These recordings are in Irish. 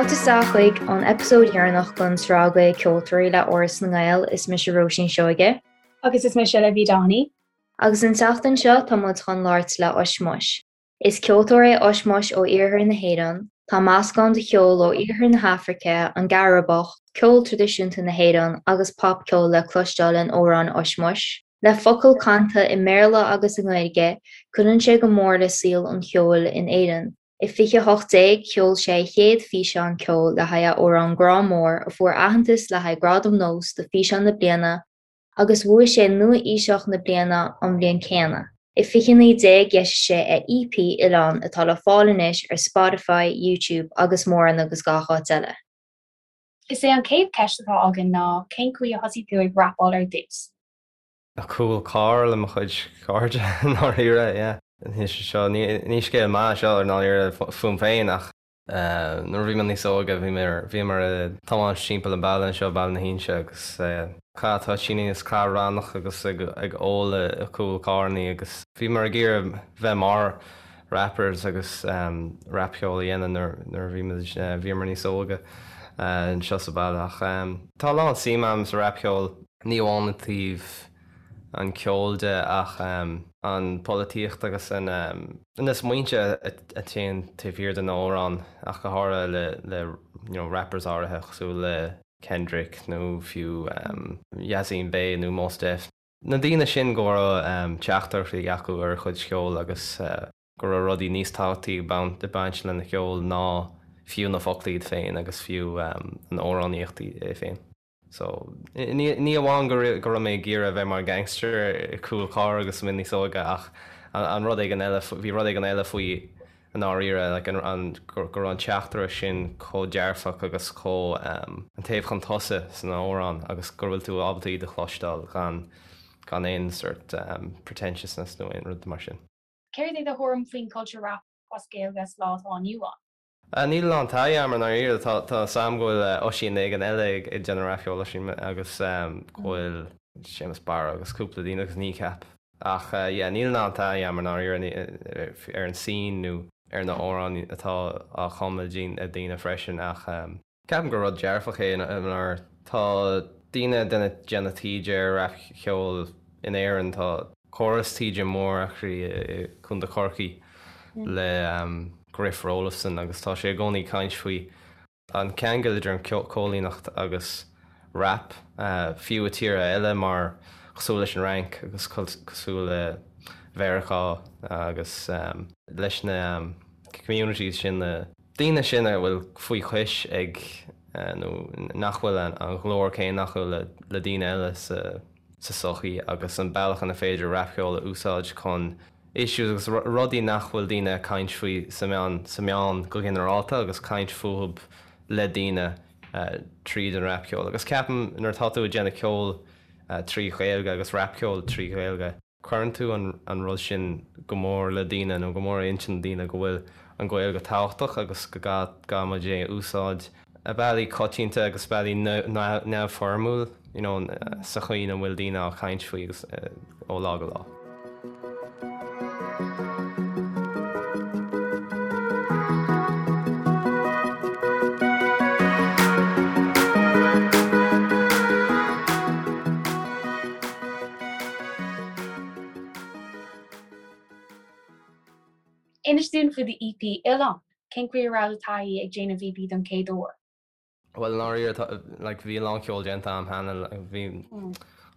Fáilte isteach chuig an eipeasóid dheireanach den tsraith Gaelcheoltóirí le Áras na nGael. Is mise Róisín Seoige. Agus is mise Libby Doheny. Agus an tseachtain seo tá muid chun labhairt le Ushmush. Is ceoltóir é Ushmush ó iarthar na hÉireann. Tá meascán de cheol ó iarthar na hAfraice, an gCaraibeach, ceol traidisiúnta na hÉireann agus popcheol le cloisteáil in amhráin Ushmush. Le focail canta i mBéarla agus i nGaeilge, cuireann sé go mór le saol an cheoil in Éirinn. I 2018, sheol sé a chéad físeán ceoil le haghaidh a amhrán Grá Mór, a fuair aitheantas le haghaidh Gradam Nós do Físeán na Bliana agus bhuaigh sé Nua-Aoiseach na Bliana an bhliain céanna. I 2019, d'eisigh sé a EP Oileán atá le fáil anois ar Spotify, YouTube agus mórán agus gach áit eile. Is é an chéad cheist atá againn ná cén chaoi a thosaigh tú ag rapáil ar dtús? Cúl carr le mo chuid cairde i ndáiríre, yeah. Ní seo, ní scéal maith é seo i ndáiríre fúm féin ach Nuair a bhí mé níos óige bhí mé bhíomar ag tiomáint timpeall an baile anseo, Baile na hInse agus ag caitheamh toitíní agus caitheamh rannach agus ag ag ól i gcúl carrannaí agus bhíomar ag iarraidh bheith mar rappers agus rapcheol a dhéanamh nuair nuair a bhí muid bhíomar níos óige anseo sa bhaile ach tá a lán suim agam sa rapcheol, ní amháin i dtaobh an ceol de ach an pholaitíocht agus an na smaointe a téann taobh thiar de na amhráin ach go háirithe le le you know rappers áirithe cosúil le Kendrick nó fiú Yasiin Bey nó Mos Def. Na daoine sin go raibh teachtaireachtaí acu ar a chuid cheoil agus go raibh rudaí níos tábhachtaí ag baint lena cheol ná fiú na focla iad féin agus fiú an amhránaíocht é féin. So, ní amháin go raibh mé ag iarraidh a bheith mar gangster i gcúl carr agus mé níos óige ach an rud éigin eile, bhí rud éigin eile faoi i ndáiríre, like an, go raibh an teachtaireacht sin chomh dearfach agus chomh, an taobh chun tosaigh san amhrán agus go bhfuil tú ábalta iad a chloisteáil gan, gan aon sort pretentiousness nó aon rud mar sin. Céard é do thuairim faoin culture rap as Gaeilge sa lá atá inniu ann? Níl a lán taithí agam i ndáiríre. Tá a fhios agam go bhfuil Oisín éigin eile ag déanamh rapcheoil, Oisín agus go bhfuil Séamus Barra agus cúpla daoine agus Kneecap. Ach yeah, níl a lán taithí agam i ndáiríre ar an scene nó ar na amhráin atá á chumadh ag daoine freisin ach ceapaim gur rud dearfach é mar tá daoine ag déanamh taighde ar rapcheol in Éirinn, tá córas taighde mór actually i Contae Chorcaí le Griff Roelofsen agus tá sé i gcónaí ag caint faoi an ceangal idir an cóilíneacht agus rap, fiú i tíortha eile mar cosúil leis an Fhrainc agus cosúil le Mheiriceá agus leis na communities sin, na daoine sin a bhfuil faoi chois ag nó nach bhfuil an ghlór céanna acu le daoine eile sa sa sochaí agus an bealach ina féidir rapcheol a úsáid chun issues agus rudaí nach bhfuil daoine ag caint faoi sa meán sa meán go ginearálta agus caint fúthub le daoine tríd an rapcheol. Agus ceapaim nuair atá tú ag déanamh ceol trí Ghaeilge agus rapcheol trí Ghaeilge, cuireann tú an rud sin go mór le daoine nó go mór i intinn daoine go bhfuil an Ghaeilge tábhachtach agus go gcaithfidh muid é a úsáid i bealaí coitianta agus bealaí neamhfhoirmiúil you know sa chaoi ina bhfuil daoine á caint faoi agus ó lá go lá. Inis dúinn faoi do EP, Oileán. Cén chaoi a raibh do taithí ag déanamh EP don chéad uair? Bhuel, i ndáiríre, tá, like, bhí a lán ceoil déanta agam cheana. Bhí,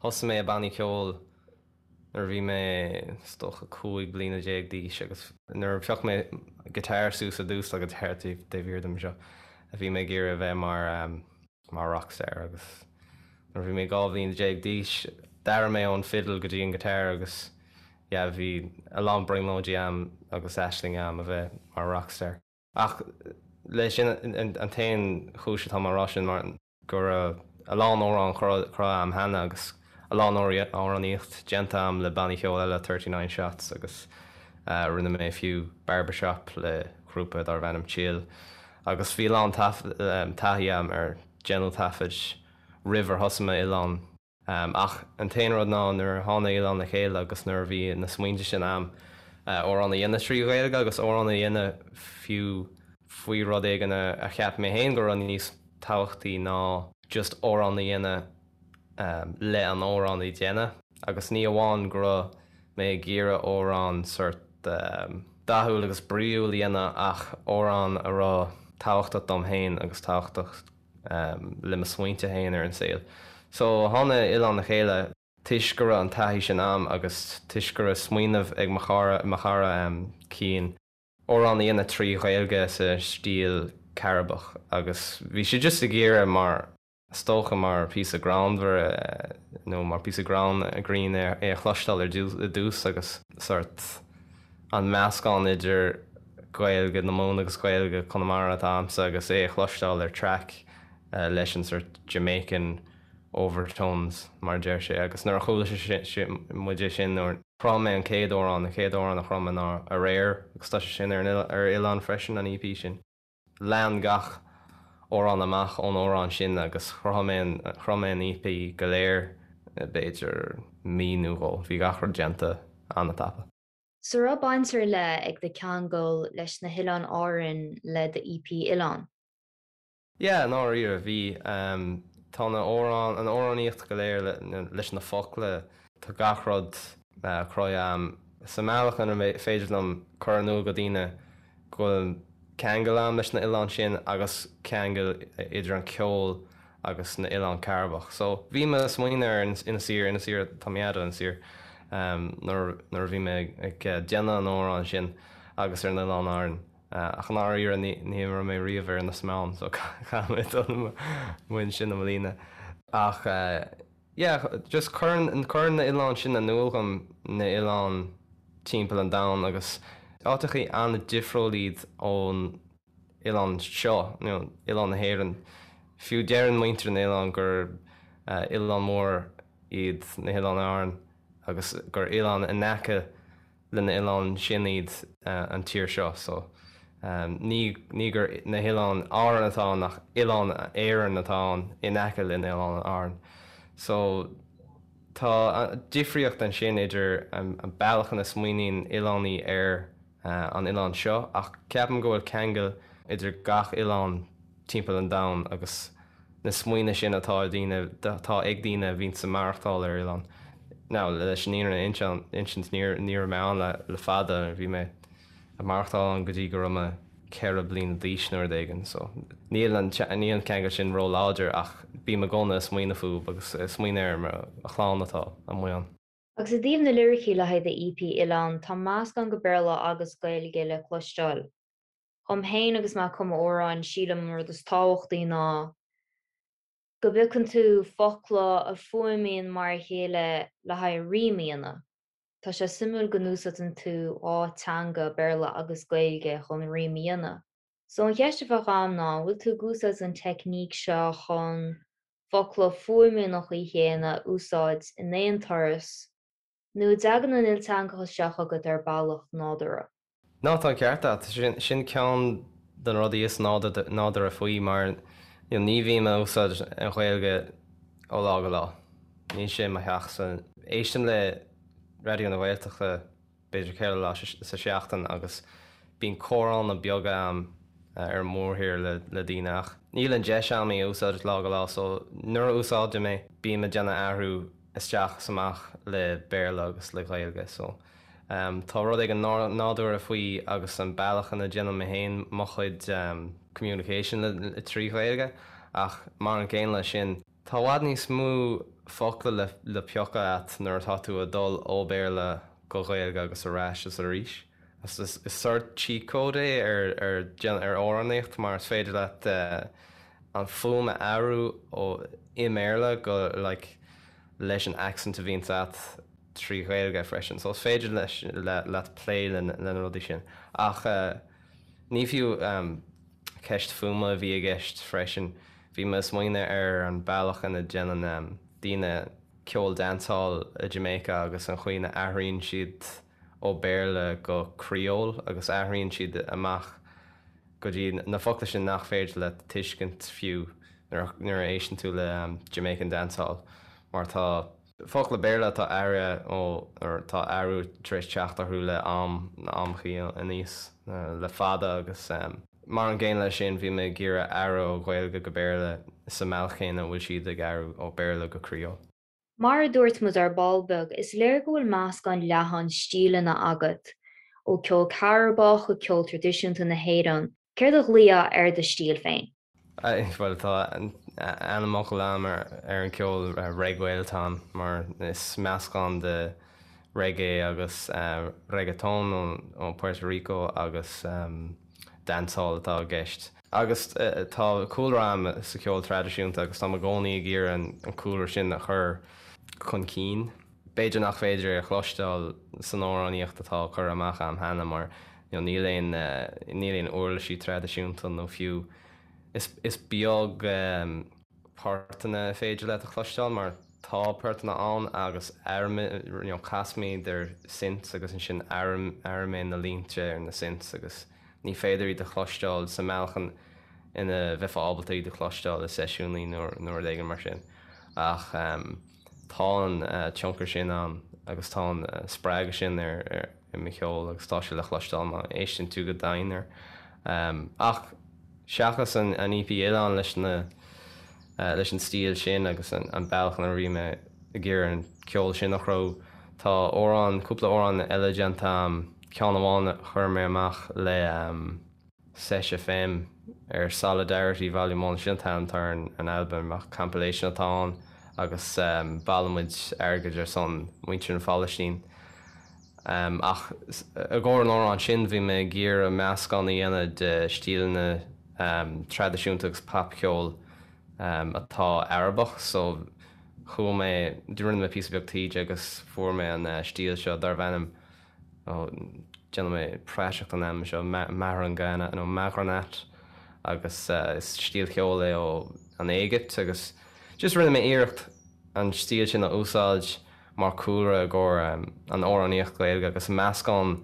thosaigh mé i bannaí ceoil nuair a bhí mé, is dócha, 15 bliana d'aois agus nuair a phioc mé guitar suas ar dtús, tá guitar taobh thiar díom anseo, bhí mé ag iarraidh a bheith mar, mar rockstar agus nuair a bhí mé 12 bhliain d'aois d'athraigh mé ón fiddle go dtí an guitar agus yeah bhí a lán brionglóidí agam agus aisling agam a bheith mar rockstar. Ach leis sin an t-aon chúis atá mé á rá sin mar go raibh a lán amhrán cruthaithe agam cheana agus a lán amhránaíocht déanta agam le bannaí ceoil eile, 39 Shots agus rinne mé fiú Barbershop le grúpa darbh ainm Chill agus bhí a lán taithí agam ar déanamh taifid roimh ar thosaigh mé Oileán. Ach an t-aon rud ná nuair a tháinig Oileán le chéile agus nuair a bhí na smaointe sin a'm, amhrán a dhéanamh trí Ghaeilge agus amhrán a dhéanamh fiú. faoi rud éigin a cheap mé féin go raibh níos tábhachtaí ná just amhrán a dhéanamh le an amhrán a dhéanamh. Agus ní amháin go raibh mé ag iarraidh amhrán sort dathúil agus bríúil a dhéanamh ach amhrán a raibh tábhachtach dom féin agus tábhachtach le mo smaointe féin ar an saol. So tháinig Oileán le chéile toisc go raibh an taithí sin a'm agus toisc go raibh smaoineamh ag mo chara, mo chara Cian, amhrán a dhéanamh trí Ghaeilge sa stíl Caribbeach agus bhí sé just ag iarraidh mar, is dócha mar píosa greannmhar nó mar píosa greann, grinn é a chloisteáil ar dtús agus sort an meascán idir Gaeilge na Mumhan agus Gaeilge Conamara atá a'msa agus é a chloisteáil ar track leis an sort Jamaican overtones mar a deir sé agus nuair a chuala sé muid é sin nuair Chruthaigh mé an chéad amhrán, an chéad amhrán a chruthaigh mé ná Aréir agus tá sé sin ar ar Oileán freisin, an EP sin. Lean gach amhrán amach ón amhrán sin agus chruthaigh mé an, chruthaigh mé an EP go léir i b'fhéidir mí nó dhó. Bhí gach rud déanta an-tapa. So raibh baint ar leith ag do cheangal leis na hOileáin Árann le do EP Oileán? Yeah, i ndáiríre, bhí. Tá na amhráin, an amhránaíocht go léir leis na focla, tá gach rud cruthaithe a'm sa mbealach ina féidir liom cur in iúl go daoine go bhfuil ceangal a'm leis na oileáin sin agus ceangal idir an ceol agus na oileáin Chairibeach. So, bhí mé ag smaoineamh ar Inis Oírr, Inis Oírr, tá mé fhad Inis Oírr, nuair nuair a bhí mé ag déanamh an amhráin sin agus ar na Oileáin Árann. Ach i ndáiríre ní raibh mé riamh ar Inis Meáin so caithfidh mé dul amuigh ansin i mbliana. Ach yeah, just cuireann, cuireann na oileáin sin in iúl dhom na oileáin timpeall an domhain agus áiteachaí an-difriúil iad ón oileán seo, you know, oileán na hÉireann. Fiú deireann muintir na n-oileán gur oileán mór iad na hOileáin Árann agus gur oileán in aice le na oileáin sin iad an tír seo so ní ní gur na hOileáin Árann atá ann ach Oileán Éireann atá ann in aice le na hOileáin Árann. So tá difríocht ansin idir an bealach ina smaoiníonn oileánaí ar an oileán seo ach ceapaim go bhfuil ceangal idir gach oileán timpeall an domhain agus na smaoine sin atá ag daoine, atá ag daoine a bhíonns ag maireachtáil ar oileán. Now, leis an fhírinne a insint, ní raibh mé ann le fada, bhí mé ag maireachtáil ann go dtí go raibh mé 4 bliana d'aois nó rud éigin, so níl an, níl an ceangal sin ró-láidir ach bím i gcónaí ag smaoineamh fúthu agus ag smaoineamh ar mo chlann atá amuigh ann. Agus i dtaobh na liricí le haghaidh do EP Oileán, tá meascán de Béarla agus Gaeilge le cloisteáil. Dhom féin agus mé ag cumadh amhráin, sílim an rud is tábhachtaí ná go bpiocann tú focla a fuaimíonn mar a chéile le haghaidh rím a dhéanamh. Tá sé suimiúil go n-úsáideann tú dhá teanga, Béarla agus Gaeilge, chun rím a dhéanamh. So an cheist a bheadh agam ná, an bhfuil tú ag úsáid an teicníc seo chun focla a fuaimíonn an chaoi chéanna a úsáid in aon turas Nó an dtagann an ilteangachas seo chugat ar bealach nádúrtha? Ná, tá an ceart agat. Sin ceann de na rudaí is nádúrtha faoi mar ní bhím ag úsáid an Ghaeilge ó lá go lá. Níl sé i mo theachsa. Éistim le Raidió na Gaeltachta b'fhéidir ceithre lá sa seachtain agus bíonn comhránna beaga a'm ar an mórthír le daoine ach níl an deis a'm í a úsáid lá go lá so nuair a úsáidim é bím ag déanamh athrú isteach is amach le Béarla agus le Gaeilge so tá rud éigin nádúrtha faoi agus an bealach ina déanaim mé féin mo chuid communication le trí Ghaeilge ach mar an gcéanna leis sin tá i bhfad níos mó focla le le piocadh a't nuair atá tú ag dul ó Bhéarla go Gaeilge agus ar ais is arís. Is sort cheat code é ar ar ar amhránaíocht mar is féidir leat an fuaim a athrú ó i mBéarla go like leis an accent a bhíonns a't trí Ghaeilge freisin. So is féidir leis leat plé le na rudaí sin. Ach ní fiú ceist fuaime a bhí i gceist freisin. Bhí mé ag smaoineamh ar an bealach ina déanann daoine ceol dancehall i Jamaica agus an chaoi ina athraíonn siad ó Béarla go Creole agus athraíonn siad amach go dtí na focla sin nach féidir leat tuiscint fiú nuair a éisteann tú le Jamaican dancehall mar tá focla Béarla atá athraithe ó tá athrú tar éis teacht orthu le am na amchaí aníos le fada agus. Mar an gcéanna leis sin, bhí mé ag iarraidh athrú ó Ghaeilge go Béarla sa mbealach chéanna a bhfuil siad ag athrú ó Béarla go Creole. Mar a dúirt muid ar ball beag, is léir go bhfuil meascán leathan stíleanna agat, ó ceol Cairibeach go ceol traidisiúnta na hÉireann. Céard a ghlaofá ar do stíl féin? Bhuel, tá ainmfhocal agam ar an gceol Reggae atá ann, mar is meascán de reggae agus reggaeton ó Puerto Rico agus dancehall atá i gceist. Agus tá cúlra agam sa cheol traidisiúnta agus táim i gcónaí ag iarraidh an cúlra sin a chur chun cinn. B'fhéidir nach féidir é a chloisteáil san amhránaíocht atá curtha amach agam cheana mar níl aon níl aon uirlisí traidisiúnta nó fiú is is beag portanna is féidir leat a chloisteáil mar tá portanna ann agus you know casaimid ar synths agus ansin athraím mé na línte ar na synths agus ní féidir iad a chloisteáil sa mbealach ina bheifeá ábalta iad a chloisteáil i seisiúnaí nó nó rud éigin mar sin ach tá an tionchar sin ann agus tá an spreagadh sin ar i mo cheol agus tá sé le chloisteáil má éisteann tú go domhain air. Ach seachas an EP Oileán leis na leis an stíl sin agus an bealach ina bhí mé ag iarraidh an ceol sin a chruthú, tá amhrán, cúpla amhrán eile déanta agam, ceann amháin a chuir mé amach le. Sesh FM ar Solidarity Volume One, sin an t-ainm atá ar an albam, ach compilation atá ann agus bailimid airgead ar son muintir na Phalaistín. Ach i gcomhair an amhráin sin bhí mé ag iarraidh meascán a dhéanamh de stíleanna traidisiúnta agus popcheol atá Arabach so chuaigh mé, rinne mé píosa beag taighde agus fuair mé an stíl seo darbh ainm Ó, déanfaidh mé praiseach den ainm seo, Mahraganat nó Mahraganat agus is stíl cheoil é ó an Éigipt agus just rinne mé iarracht an stíl sin a úsáid mar chúlra i gcomhair an amhránaíocht Ghaeilge agus meascán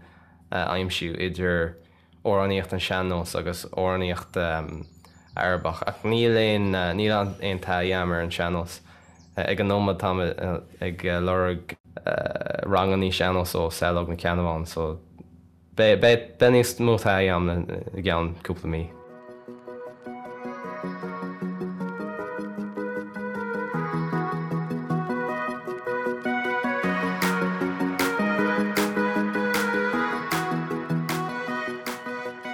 a aimsiú idir amhránaíocht an sean-nós agus amhránaíocht Arabach. Ach níl aon, níl aon taithí agam ar an sean-nós. Ag an nóiméad táim ag lorg rangannaí sean-nós ó Saileog Nic Ceannabháin so beidh, beidh níos mó taithí agam i gceann cúpla mí.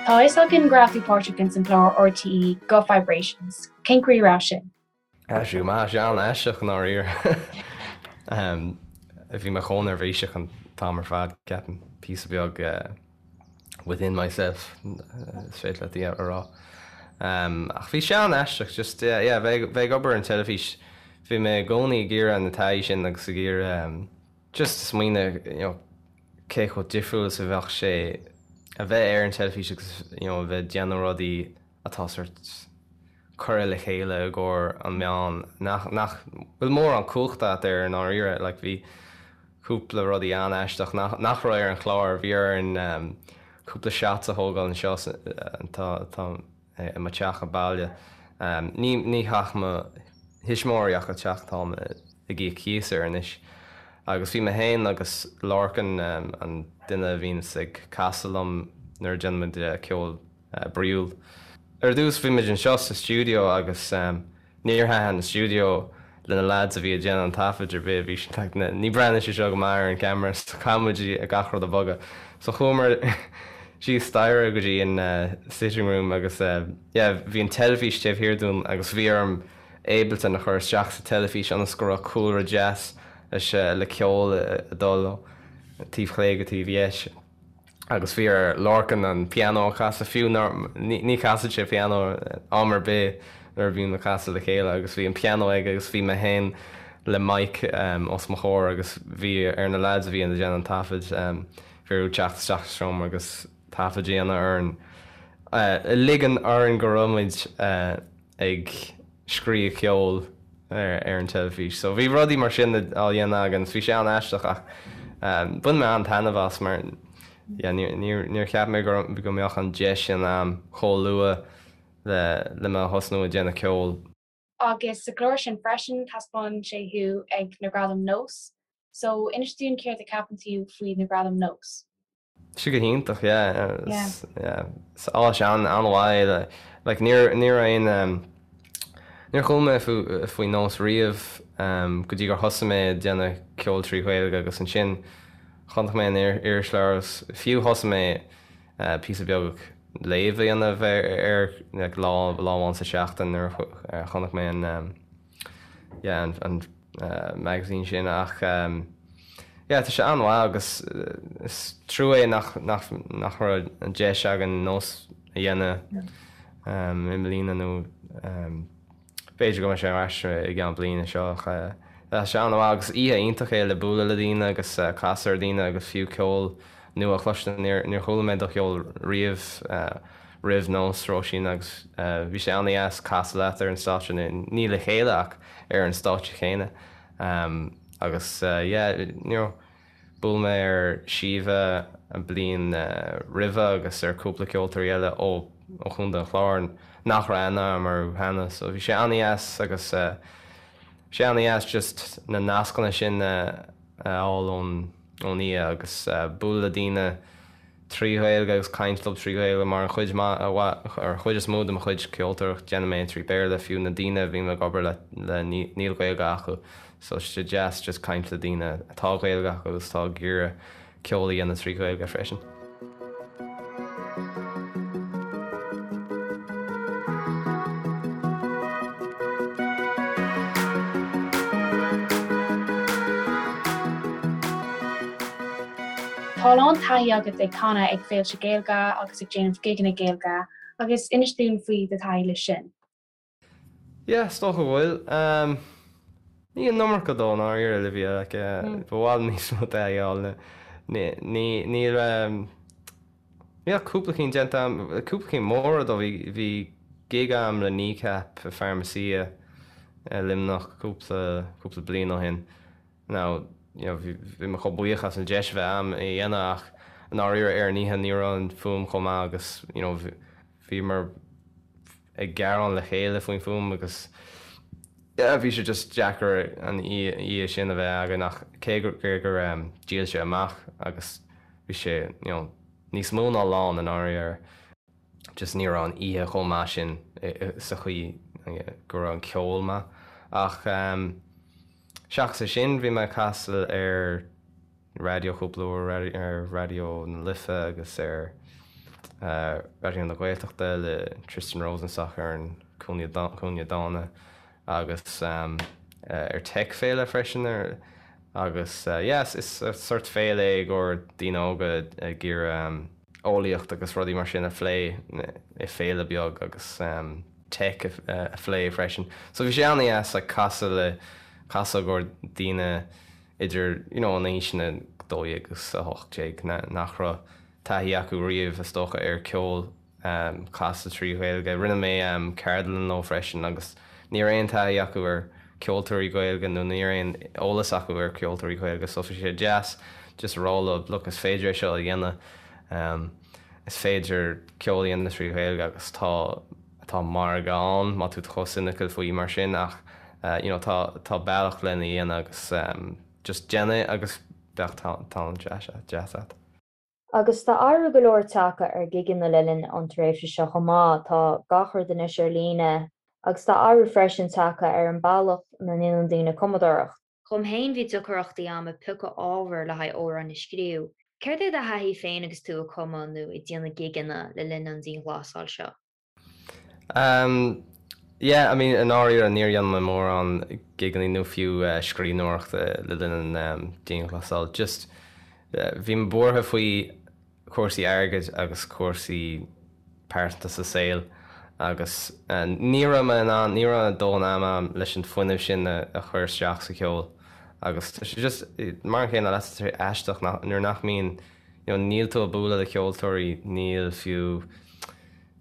Tá a fhios againn go raibh tú páirteach ins an gclár RTÉ Guth Vibrations. Cén chaoi a raibh sin? Bhí sé an-aisteach i ndáiríre. Bhí mé chomh neirbhíseach an t-am ar fad, ceapaim, píosa beag within myself, is féidir leat a rá. Ach bhí sé an-aisteach, just, yeah, yeah, bheith ag obair ar an teilifís, bhí mé i gcónaí ag iarraidh na taithí sin agus ag iarraidh just smaoineamh, you know, cé chomh difriúil is a bheadh sé a bheith ar an teilifís agus, you know, a bheith ag déanamh rudaí atá sort curtha le chéile i gcomhair an meán nach, nach bhfuil mórán cumhachta agat air i ndáiríre. Like bhí cúpla rudaí an-aisteach nach, nach raibh ar an chlár. Bhí orainn cúpla shots a thógáil anseo tá, tá i mo teach baile. Ní, ní theach mo thuismitheoirí ach an teach atáim ag íoc cíos air anois. Agus bhí mé féin agus Lorcan, an duine a bhíonns ag casadh liom nuair a déanaimid ceol bríúil. Ar dtús bhí muid anseo sa stiúideo agus níor thaitin an stiúideo le na lads a bhí ag déanamh an taifid ar bith, bhí siad like ní breathnaíonn sé seo go maith ar an camera so caithfidh muid gach rud a bhogadh. So chuamar síos staighre go dtí an sitting room agus yeah bhí an teilifís taobh thiar dúinn agus bhí orm Ableton a chur isteach sa teilifís ionas go raibh cúlra deas leis le ceol ag dul ó taobh chlé go taobh dheis. agus bhí ar Lorcan an pianó a chasadh, fiú nár, ní chasann sé pianó am ar bith nuair a bhíonn ag casadh le chéile agus bhí an pianó aige agus bhí mé féin le mic os mo chomhair agus bhí ar na lads a bhí ag déanamh an taifid, bhí orthu teacht isteach sa seomra agus taifead a dhéanamh orainn, ligean orainn go raibh muid ag scríobh ceoil ar an teilifís. So bhí rudaí mar sin á dhéanamh againn agus bhí sé an-aisteach ach bhain mé an-taitneamh as mar yeah níor níor cheap mé go go mbeadh an deis sin a'm chomh luath le le mé a thosnú ag déanamh ceoil. Agus sa gclár sin freisin taispeánann sé thú ag na Gradaim Nós. So inis dúinn céard a ceapann tú faoi na Gradaim Nós? Sé go hiontach, yeah. Yeah. Is áis an-mhaith é. Like, ní ní raibh aon, níor chuala mé faoi Nós riamh go dtí gur thosaigh mé ag déanamh ceol trí Ghaeilge agus ansin chonaic mé an irisleabhar agus fiú thosaigh mé píosa beag léamh a dhéanamh air like lá lá amháin sa tseachtain nuair a chonaic mé an yeah an an magazine sin ach yeah tá sé an-mhaith agus is trua é nach nach nach raibh an deis againn nós a dhéanamh i mbliana nó b'fhéidir go mbeidh sé ar ais i gceann bliana seo ach tá sé an-mhaith agus oíche iontach é le bualadh le daoine agus casadh ar daoine agus fiú ceol nua a chloisteáil. Níor níor chuala mé do cheol riamh roimh nós Róisín agus bhí sé an-dheas casadh leat ar an stáitse, ní le chéile ach ar an stáitse chéanna agus yeah you know bhuail mé ar Síomha an bliain roimhe agus ar cúpla ceoltóirí eile ó ó Chontae an Chláir nach raibh aithne agam orthu cheana so bhí sé an-dheas agus bhí sé an-dheas just na nascanna sin a fháil ón ón oíche agus bualadh le daoine trí Ghaeilge agus caint leo trí Ghaeilge mar an chuid mhaith, ar an chuid is mó de mo chuid ceoltóireacht déanaim é trí Bhéarla, fiú na daoine a bhím ag obair le níl Gaeilge acu so tá sé deas just caint le daoine atá Gaeilge acu agus atá ag iarraidh ceol a dhéanamh trí Ghaeilge freisin. Tá a lán taithí agat ag canadh ag féilte Gaeilge agus ag déanamh gigeanna Gaeilge agus inis dúinn faoi do thaithí leis sin. Yeah, is dócha go bhfuil. Ní an iomarca though, i ndáiríre, Olivia, like, ba mhaith liom níos mó taithí a fháil. Ní, ní, níl, níl ach cúpla cinn déanta agam, cúpla cinn móra though, bhí, bhí gig agam le Kneecap i Pharmacia i Luimneach cúpla, cúpla bliain ó shin. Now, you know, bhí, bhí mé chomh buíoch as an deis a bheith agam é a dhéanamh ach i ndáiríre ar an oíche ní raibh an fuaim chomh maith agus, you know, bhíomar ag gearán le chéile faoin fuaim agus yeah, bhí sé just deacair an oíche sin a bheith againn ach cé gur, gur dhíol sé amach agus bhí sé, you know, níos mó ná lán i ndáiríre, just ní raibh an oíche chomh maith sin sa chaoi go raibh an ceol maith ach seachas é sin bhí mé ag casadh ar raidió cúpla uair, ar Raidió na Life agus ar Raidió na Gaeltachta le Tristan Rosenstock ar an Cúinne Dána agus ar Tech Féile freisin agus yeah is sort féile é i gcomhair daoine óga ag iarraidh eolaíocht agus rudaí mar sin a phlé i féile beag agus tech a phlé freisin. So bhí sé an-dheas like casadh le casadh i gcomhair daoine idir you know an aoiseanna 12 agus 18 nach raibh taithí acu riamh is dócha ar ceol casta trí Ghaeilge. Rinne mé ceardlann leo freisin agus ní raibh aon taithí acu ar ceoltóirí Gaeilge nó ní raibh aon eolas acu ar ceoltóirí Gaeilge so bhí sé deas just a rá leo look is féidir é seo a dhéanamh, is féidir ceol a dhéanamh trí Ghaeilge agus tá tá margadh ann má tá tú chomh cynical faoi mar sin ach you know tá tá bealach lena dhéanamh agus just déan é agus beidh tallann deas deas agat. Agus tá athrú go leor tagtha ar ghigeanna le linn an tréimhse seo chomh maith, tá gach rud anois ar líne agus tá athrú freisin tagtha ar an bealach ina ndéanann daoine cumadóireacht. Dhom féin bhí deacrachtaí a'm ag piocadh ábhair le haghaidh amhráin a scríobh. Céard é do thaithí féin agus tú ag cumadh nó ag déanamh gigeanna le linn an dianghlasáil seo? Umm yeah, I mean i ndáiríre níor dhein mé mórán gigeanna nó fiú scríbhneoireachta le linn an dianghlasáil. Just bhí mé buartha faoi cúrsaí airgid agus cúrsaí pearsanta sa saol agus ní raibh mé in ann, ní raibh dóthain ama agam leis an fuinneamh sin a chur isteach sa cheol agus tá sé just mar an chéanna leat, tá sé aisteach nuair nach mbíonn, you know níl tú ag bualadh le ceoltóirí, níl fiú,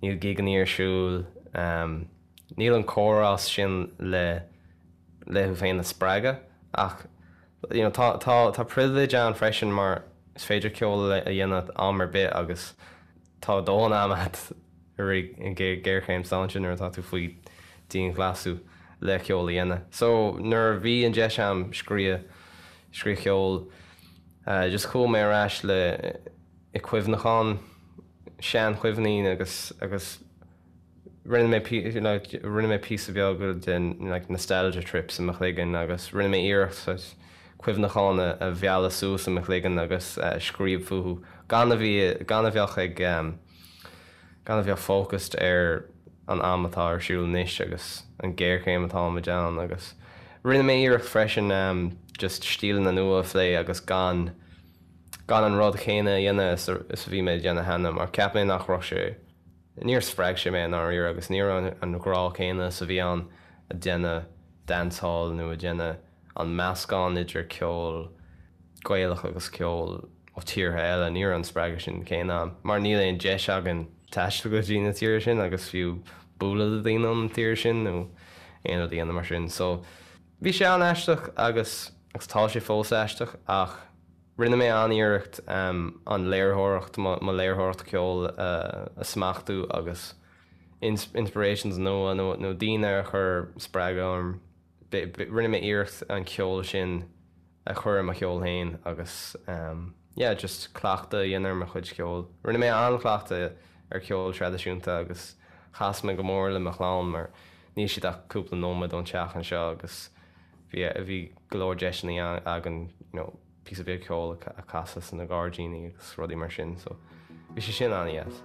níl gigeanna ar siúl, níl an comhrá sin le le thú féin a spreagadh ach you know tá tá tá privilege ann freisin mar is féidir ceol a dhéanamh am ar bith agus tá dóthain ama agat i rith an ghéarchéim sláinte nuair atá tú faoi dianghlasáil le ceol a dhéanamh. So nuair a bhí an deis agam scríobh scríobh ceol just chuaigh mé ar ais le. I cuimhneachán, seanchuimhní agus agus rinne mé like rinne mé píosa beag den like nostalgia trips i mo chloigeann agus rinne mé iarracht saghas cuimhneacháin a a mhealladh suas i mo chloigeann agus scríobh fúthu gan a bhí gan a bheadh ag gan a bheadh focused ar an am atá ar siúl anois agus an géarchéim atáimid ann agus rinne mé iarracht freisin just stíleanna nua a phlé agus gan gan an rud chéanna a dhéanamh is a bhí mé ag déanamh cheana mar cheap mé nach raibh sé, níor spreag sé mé i ndáiríre agus ní raibh an grá céanna is a bhí ann ag déanamh dancehall nó ag déanamh an meascán idir ceol Gaelach agus ceol ó tíortha eile, ní raibh an spreagadh sin céanna ann mar níl aon deis againn taisteal go dtí na tíortha sin agus fiú bualadh le daoine ón tír sin nó aon rud a dhéanamh mar sin. So bhí sé an-aisteach agus agus tá sé fós aisteach ach Rinne mé an-iarracht an léiritheoireacht, mo léiritheoireacht ceoil a smachtú agus inspirations nua nó daoine a chuir spreagadh orm. Rinne mé iarracht an ceol sin a chur i mo cheol féin agus yeah just cleachtadh a dhéanamh ar mo chuid ceoil. Rinne mé an-chleachtadh ar cheol traidisiúnta agus chas mé go mór le mo chlann mar níl siad ach cúpla nóiméad ón teach anseo agus Bhí, bhí go leor deiseanna againn you know píosa beag ceoil a chasadh sna gairdíní agus rudaí mar sin so bhí sé sin an-dheas.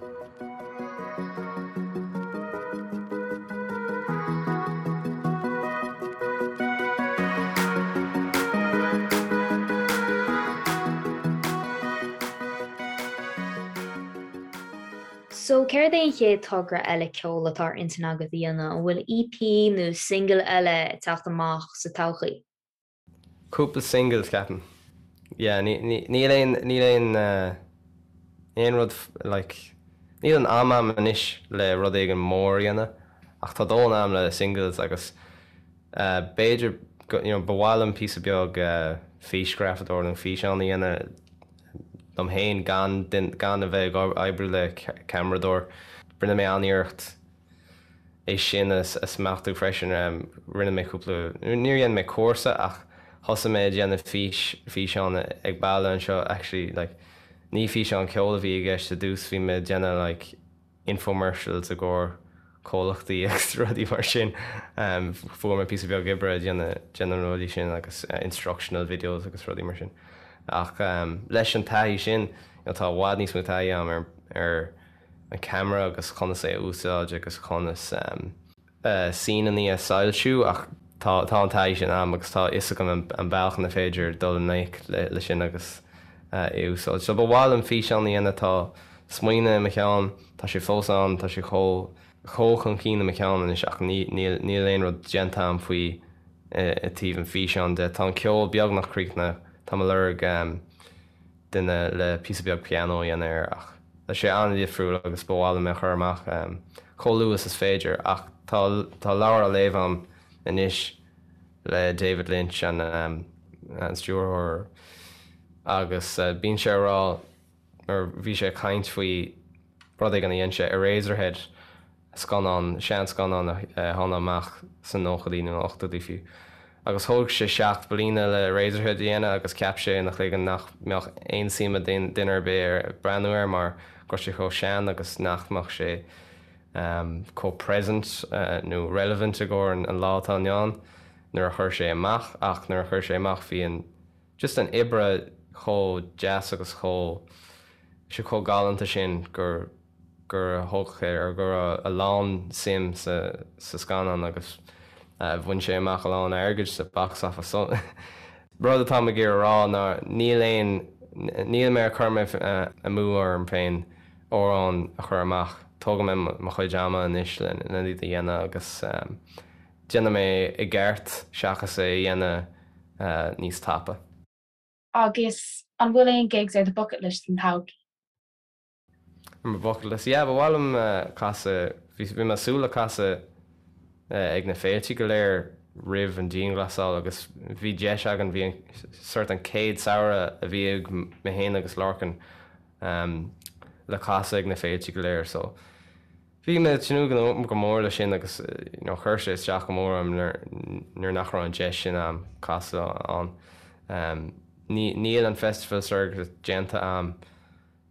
So, céard é an chéad togra eile ceoil atá ar intinn agat a dhéanamh? An bhfuil EP nó single eile ag teacht amach sa todhchaí? Cúpla singles, ceapaim. Yeah, níl aon, níl aon, aon rud like, níl an am a'm anois le rud éigin mór a dhéanamh ach tá dóthain am le singles agus b'fhéidir go, you know, ba mhaith liom píosa beag físghrafadóir nó físeán a dhéanamh liom féin gan gan a bheith ag oibriú le ceamaradóir. Rinne mé an-iarracht é sin a smachtú freisin. Rinne mé cúpla, níor dhein mé cúrsa ach thosaigh mé ag déanamh fís, físeán ag baile anseo actually like ní físeán ceoil a bhí i gceist i dtús, bhí mé ag déanamh like infomercials i gcomhair comhlachtaí agus rudaí mar sin. Fuair mé píosa beag oibre ag déanamh déanamh na rudaí sin agus instructional videos agus rudaí mar sin. Ach leis an taithí sin, you know, tá i bhfad níos mó taithí agam ar ar an camera agus conas é a úsáid agus conas scenes a soilsiú ach tá tá an taithí sin agam agus tá a fhios agam an bealach ina féidir dul i ngleic le sin agus é a úsáid. So ba mhaith liom físeán a dhéanamh, tá smaoineamh i mo cheann, tá sé fós ann, tá sé chomh chomh chun cinn i mo cheann anois ach ní níl níl aon rud déanta agam faoi i dtaobh an físeáin de. Tá an ceol beagnach críochnaithe, táim ag lorg duine le píosa beag pianó a dhéanamh air ach tá sé an-difriúil agus ba mhaith liom é a chur amach chomh luath is is féidir ach tá tá leabhar á léamh agam anois le David Lynch an an stiúrthóir agus bíonn sé ag rá mar bhí sé ag caint faoi rud éigin a dhein sé, Eraserhead, scannán, seanscannán a tháinig amach sna nóchaidí nó na ochtóidí fiú. Agus thóg sé 7 bliana le Eraserhead a dhéanamh agus cheap sé ina chloigeann nach mbeadh aon suim ag duine ar bith ar breathnú air mar go raibh sé chomh sean agus nach mbeadh sé chomh present nó relevant i gcomhair an lá atá inniu ann nuair a chuir sé amach ach nuair a chuir sé amach bhí an just an oibre chomh deas agus chomh sé chomh galánta sin gur gur thóg sé ar go raibh a lán suim sa sa scannán agus bhain sé amach a lán airgid sa box office. So rud atáim ag iarraidh a rá ná níl aon níl mé ag cur mé amú orm féin amhrán a chur amach. Tógfaidh mé mo chuid ama anois le iad a dhéanamh agus déanfaidh mé i gceart seachas é a dhéanamh níos tapa. Agus an bhfuil aon gigs ar do bucket list don todhchaí? Ar mo bucket list? Yeah, ba mhaith liom casadh, bhí bhí mé ag súil le casadh ag na féilte go léir roimh an dianghlasáil agus bhí deis againn, bhí an sort an chéad samhradh a bhí ag mé féin agus Lorcan le casadh ag na féilte go léir so bhí mé ag tnúth go mór leis sin agus you know chuir sé isteach go mór orm nuair nuair nach raibh an deis sin a'm casadh ann. Ní níl an festival circuit déanta a'm.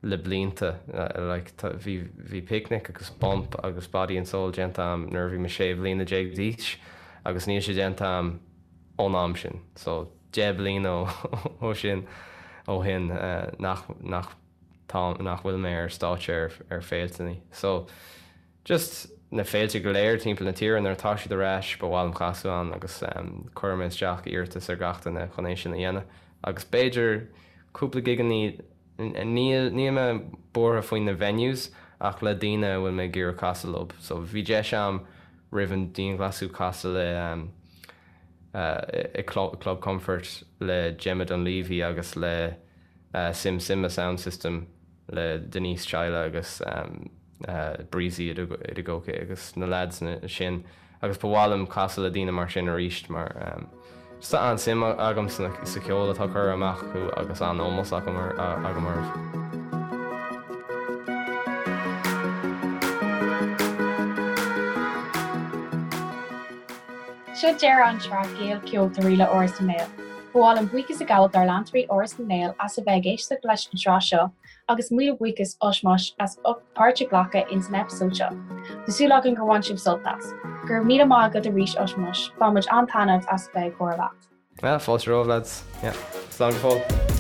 le blianta. Like bhí bhí Picnic agus Bump agus Body and Soul déanta a'm nuair a bhí mé 16 bhliana d'aois agus níl sé déanta a'm ón am sin. So 10 bliana ó sin ó shin nach nach tá nach bhfuil mé ar stáitse ar ar féilteannaí. So just na féilte go léir timpeall na tíre nuair atá siad ar ais ba mhaith liom casadh ann agus cuirfidh mé isteach iarratas ar gach duine chun é sin a dhéanamh agus b'fhéidir cúpla gigeannaí Níl níl mé buartha faoi na venues ach le daoine a bhfuil mé ag iarraidh casadh leo. So bhí deis a'm roimh an dianghlasáil casadh le i Club Comfort le Gemma Dunleavy agus le Sim Simma Sound System le Denise Chaila agus Breezy Adegoke agus na lads sin agus ba mhaith liom casadh le daoine mar sin arís mar tá an-suim agam sa cheol atá curtha amach acu agus an-ómós agam orthu. Seo deireadh an tsraith Gaelcheoltóirí le Áras na nGael. Ba mhaith liom buíochas a ghabháil dár leantóirí Áras na nGael as a bheith ag éisteacht leis an tsraith seo Agus míle buíochas Ushmush as ucht páirt a ghlacadh ins an eipeasóid seo. Tá súil againn gur bhain sibh sult as. Go raibh míle maith agat arís Ushmush, bhain muid an-taitneamh as a bheith ag comhrá leat. Yeah, fáilte romhaibh lads. Yeah. Slán go fóill.